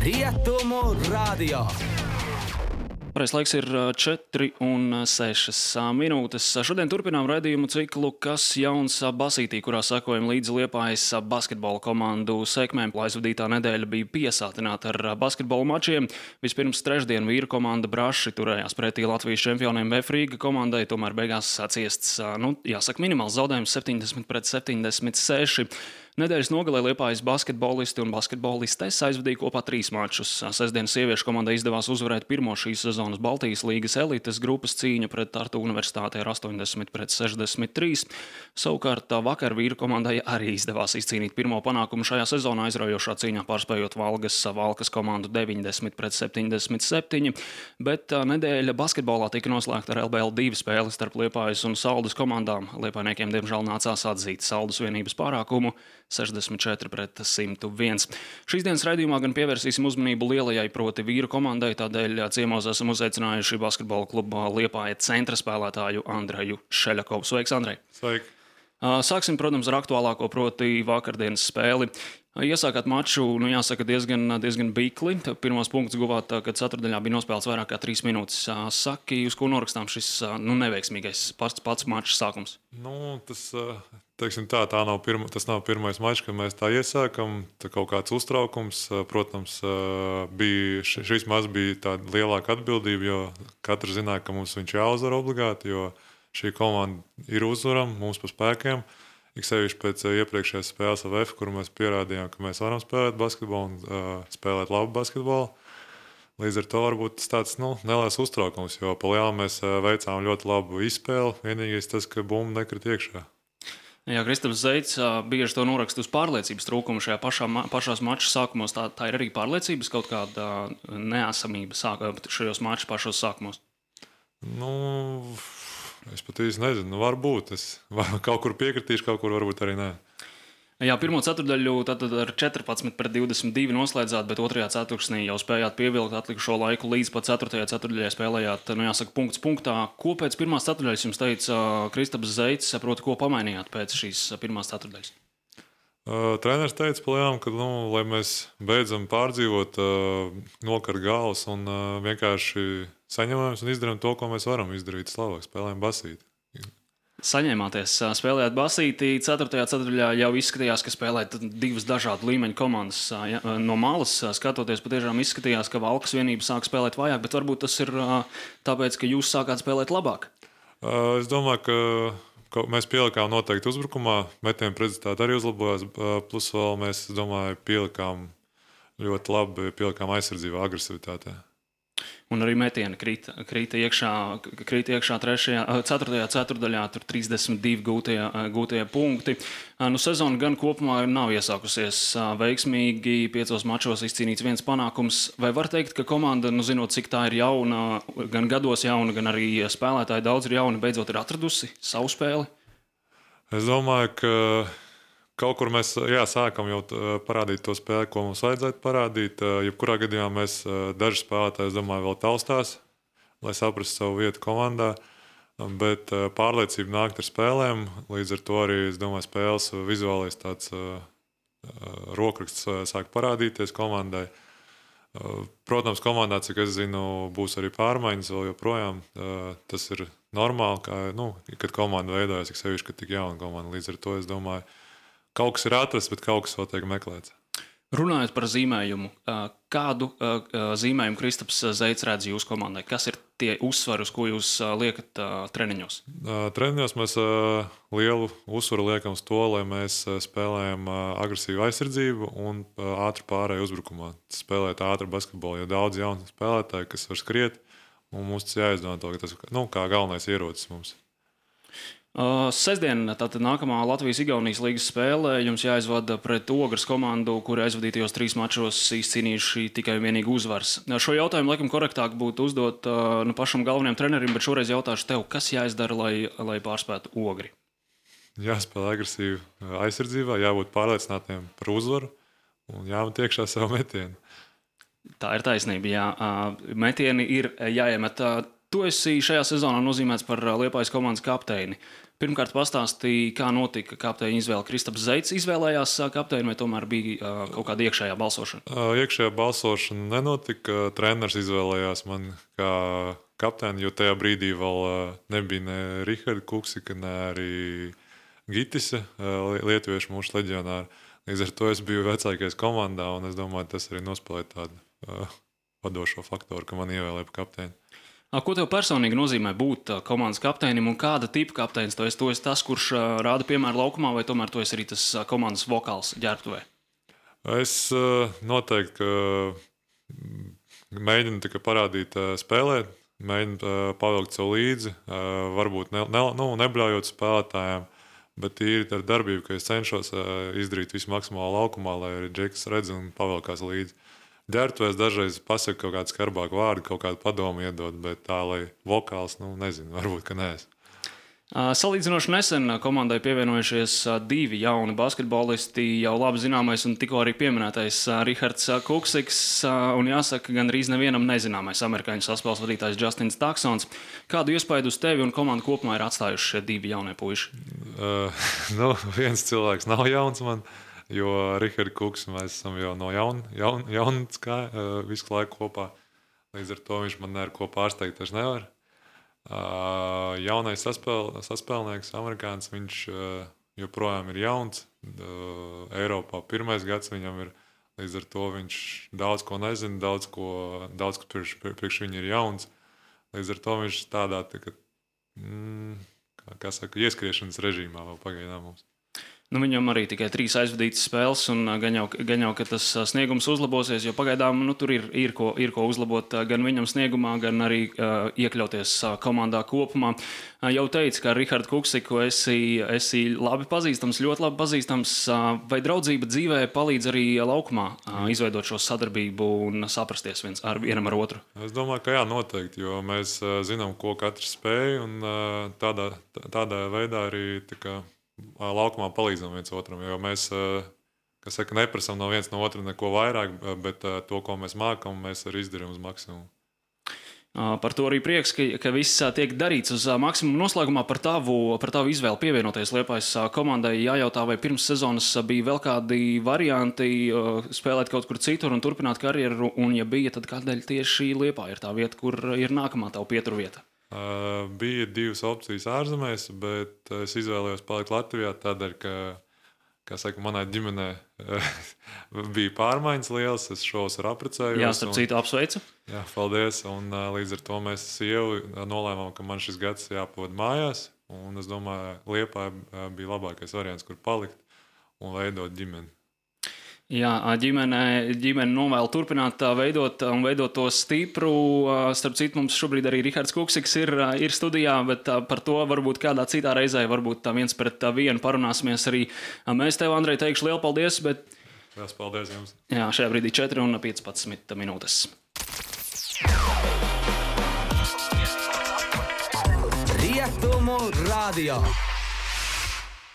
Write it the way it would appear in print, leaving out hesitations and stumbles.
Rietumu radio. Pareizais laiks ir 4,6 minūtes. Šodien turpinām raidījumu ciklu Kas jauns basītī, kurā sekojam līdzi Liepājas basketbola komandu sekmēm. Aizvadītā nedēļa bija piesātināta ar basketbola mačiem. Vispirms trešdien vīru komanda Braši turējās pretī Latvijas čempioniem VF Rīga komandai, tomēr beigās ciests, minimāls zaudējums 70-76. Nedēļas nogalē Liepājas basketbolisti un basketbolistes aizvadīja kopā 3 mačus. Sestdienas sieviešu komandai izdevās uzvarēt pirmo šīs sezonas Baltijas līgas elites grupas cīņu pret Tartu universitāti ar 80-63. Savukārt vakar vīru komandai arī izdevās izcīnīt pirmo panākumu šajā sezonā, aizraujošā cīņā pārspējot Valkas komandu 90-77. Bet nedēļa basketbolā tika noslēgta ar LBL 2 spēli starp Liepājas un Saldus komandām. Liepājniekiem diemžēl nācās atzīt Saldus vienības pārākumu 64-101. Šīs dienas raidījumā gan pievērsīsim uzmanību lielajai, proti vīru komandai, tādēļ ciemos esam uzaicinājuši basketbola kluba Liepāja centra spēlētāju Andreju Šeļakovu. Sveiks, Andrej! Sveiki! Sāksim, protams, ar aktuālāko, proti vakardienas spēli. Iesākāt maču, jāsaka, diezgan bikli. Pirmos punktus guvāt, kad ceturtdaļā bija nospēlēts vairāk kā 3 minūtes. Saki, uz ko norakstām šis neveiksmīgais pats mačs sākums? Tas nav pirmais mačs, kad mēs tā iesākam. Tā kaut kāds uztraukums. Protams, šis mačs bija tāda lielāka atbildība, jo katrs zināja, ka mums viņš jāuzvar obligāti, jo šī komanda ir uzvarama mums pa spēkiem. Ik sevišķi pēc iepriekšējās spēles ar VF, kur mēs pierādījām, ka mēs varam spēlēt basketbolu un spēlēt labu basketbolu. Līdz ar to varbūt tas tāds neliels uztraukums, jo pa lielu mēs veicām ļoti labu izspēli. Vienīgais tas, ka bumba nekrit iekšā. Jā, Kristaps Zeits bieži to noraksta uz pārliecības trūkumu šajā pašās maču sākumos. Tā ir arī pārliecības kaut kāda neesamība šajos maču pašos sākumos? Es pat īsti nezinu, varbūt. Es kaut kur piekritīšu, kaut kur varbūt arī nē. Jā, pirmo ceturtdaļu tad ar 14-22 noslēdzāt, bet otrajā ceturksnī jau spējāt pievilkt atlikušo laiku līdz pat 4. ceturtdaļai spēlējāt, punkts punktā. Ko pēc pirmās ceturtdaļas jums teica Kristaps Zeits, proti, ko pamainījāt pēc šīs pirmās ceturtdaļas? Treneris teica palielam, ka, lai mēs beidzam pārdzīvot, nokart galvas un vienkārši saņemamies un izdarām to, ko mēs varam izdarīt. Slavāk, spēlējam basīti. Saņēmāties, spēlējāt basītī. 4. ceturtdaļā jau izskatījās, ka spēlēt 2 dažādu līmeņu komandas. No malas skatoties, patiešām izskatījās, ka Valkas vienība sāk spēlēt vājāk, bet varbūt tas ir tāpēc, ka jūs sākāt spēlēt labāk. Es domāju, ka mēs pielikām noteikti uzbrukumā. Metienu precizitāte arī uzlabojās. Plus vēl mēs, domāju, pielikām ļoti labi aizsardzībā, agresivitātē. Un arī metieni krīta iekšā 4. ceturtdaļā, tur 32 gūtie punkti. Sezona gan kopumā nav iesākusies veiksmīgi, 5 mačos izcīnīts 1 panākums. Vai var teikt, ka komanda, zinot, cik tā ir jauna, gan gados jauna, gan arī spēlētāji daudz ir jauni, beidzot ir atradusi savu spēli? Es domāju, ka kaut kur mēs sākam jau parādīt to spēli, ko mums vajadzētu parādīt. Jebkurā gadījumā mēs daži spēlētāji, es domāju, vēl taustās, lai saprastu savu vietu komandā. Bet pārliecība nākt ar spēlēm. Līdz ar to arī, es domāju, spēles vizuālais tāds rokraksts sāk parādīties komandai. Protams, komandā, cik es zinu, būs arī pārmaiņas vēl joprojām. Tas ir normāli, kad komanda veidojas, cik sevišķi, kad tik jauna komanda. Līdz ar to, es domāju, kaut kas ir atrasts, bet kaut kas vēl tiek meklēts. Runājot par zīmējumu, kādu zīmējumu Kristaps Zeits redz jūsu komandai? Kas ir tie uzsvari, uz ko jūs liekat treniņos? Treniņos mēs lielu uzsvaru liekam uz to, lai mēs spēlējam agresīvu aizsardzību un ātru pārēju uzbrukumā. Spēlēt ātru basketbolu, jo daudz jaunu spēlētāju, kas var skriet, un mums tas jāizdomā to, ka tas kā galvenais ierocis mums. Sestdien, tātad nākamā Latvijas-Igaunijas līgas spēle, jums jāizvada pret Ogres komandu, kuri aizvadītajos 3 mačos izcīnījuši tikai vienīgi uzvaras. Šo jautājumu laikam korektāk būtu uzdot pašam galvenajam trenerim, bet šoreiz jautāšu tev, kas jāizdara, lai pārspētu Ogri? Jāspēlē agresīvi aizsardzībā, jābūt pārliecinātiem par uzvaru un jāmet iekšā savu metienu. Tā ir taisnība, jā. Metieni ir jāiemet. Tu esi šajā sezonā nozīmēts par Liepājas komandas kapteini. Pirmkārt, pastāstīja, kā notika kapteiņa izvēle. Kristaps Zeits izvēlējās kapteini, vai tomēr bija kaut kāda iekšējā balsošana? Iekšējā balsošana nenotika. Treneris izvēlējās man kā kapteini, jo tajā brīdī vēl nebija ne Riharda Kuksika, ne arī Gitise, lietuviešu mūsu leģionāri. Līdz ar to es biju vecākais komandā, un es domāju, tas arī nospēlēja tādu vadošo faktoru, ka man ievēlēja par kapteini. Ko tev personīgi nozīmē būt komandas kapteinim, un kāda tipa kapteinis tu esi? Tu esi tas, kurš rāda piemēru laukumā, vai tomēr tu esi arī tas komandas vokāls ģērbtuvē? Es noteikti mēģinu tikai parādīt spēlēt, mēģinu pavilkt sev līdzi, varbūt nebļaujot spēlētājiem, bet ir ar darbību, ka es cenšos izdarīt visu maksimāli laukumā, lai arī Džeks redz un pavilkās līdzi. Ģērbtuvēs dažreiz pasaka kaut kādu skarbāku vārdu, kaut kādu padomu iedod, bet tā, lai vokāls, nezinu, varbūt, ka neesmu. Salīdzinoši nesen komandai pievienojušies 2 jauni basketbolisti, jau labi zināmais un tikko arī pieminētais Rihards Kuksiks, un jāsaka, gan arī nevienam nezināmais amerikāņu saspēles vadītājs Justins Taksons. Kādu iespaidu uz tevi un komandu kopumā ir atstājuši šie 2 jaunie puiši? Viens cilvēks nav jauns man, jo Rihards Kuks mēs esam jau no jaunas visu laiku kopā. Līdz ar to viņš man ar ko pārsteigt taču nevar. Jaunais saspēlnieks, amerikānis, viņš joprojām ir jauns. Eiropā 1. gads viņam ir, līdz ar to viņš daudz ko nezina, daudz ko priekš viņa ir jauns. Līdz ar to viņš tādā, ieskriešanas režīmā vēl pagaidām mums. Viņam arī tikai 3 aizvadītas spēles, un gan jau, ka tas sniegums uzlabosies, jo pagaidām tur ir ko uzlabot gan viņam sniegumā, gan arī iekļauties komandā kopumā. Jau teicu, ka Rihardu Kuksiku esi labi pazīstams, ļoti labi pazīstams. Vai draudzība dzīvē palīdz arī laukumā izveidot šo sadarbību un saprasties vienam ar otru? Es domāju, ka jā, noteikti, jo mēs zinām, ko katrs spēj, un tādā veidā arī laukumā palīdzam viens otram, jo mēs, neprasam no viens no otra neko vairāk, bet to, ko mēs mākam, mēs arī izdarām uz maksimumu. Par to arī prieks, ka viss tiek darīts uz maksimumu. Noslēgumā par tavu izvēli pievienoties Liepājas komandai jājautā, vai pirms sezonas bija vēl kādi varianti spēlēt kaut kur citur un turpināt karjeru, un ja bija, tad kādēļ tieši Liepāja ir tā vieta, kur ir nākamā tavu pieturvieta? Bija 2 opcijas ārzemēs, bet es izvēlējos palikt Latvijā tādēļ, ka manai ģimenē bija pārmaiņas lielas, es šos ar apprecējos. Jā, starp citu apsveicu. Jā, paldies, un līdz ar to mēs sievu nolēmām, ka man šis gads jāpavada mājās, un es domāju, Liepāja bija labākais variants, kur palikt un veidot ģimeni. Jā, ģimene novēl turpināt veidot to stipru. Starp citu, mums šobrīd arī Rihards Kuksiks ir studijā, bet par to varbūt kādā citā reizē, varbūt 1-1 parunāsimies arī. Mēs tev, Andrej, teikšu lielu paldies, bet... Liels paldies jums. Jā, šajā brīdī 4:15 minūtes. Rietumu radio.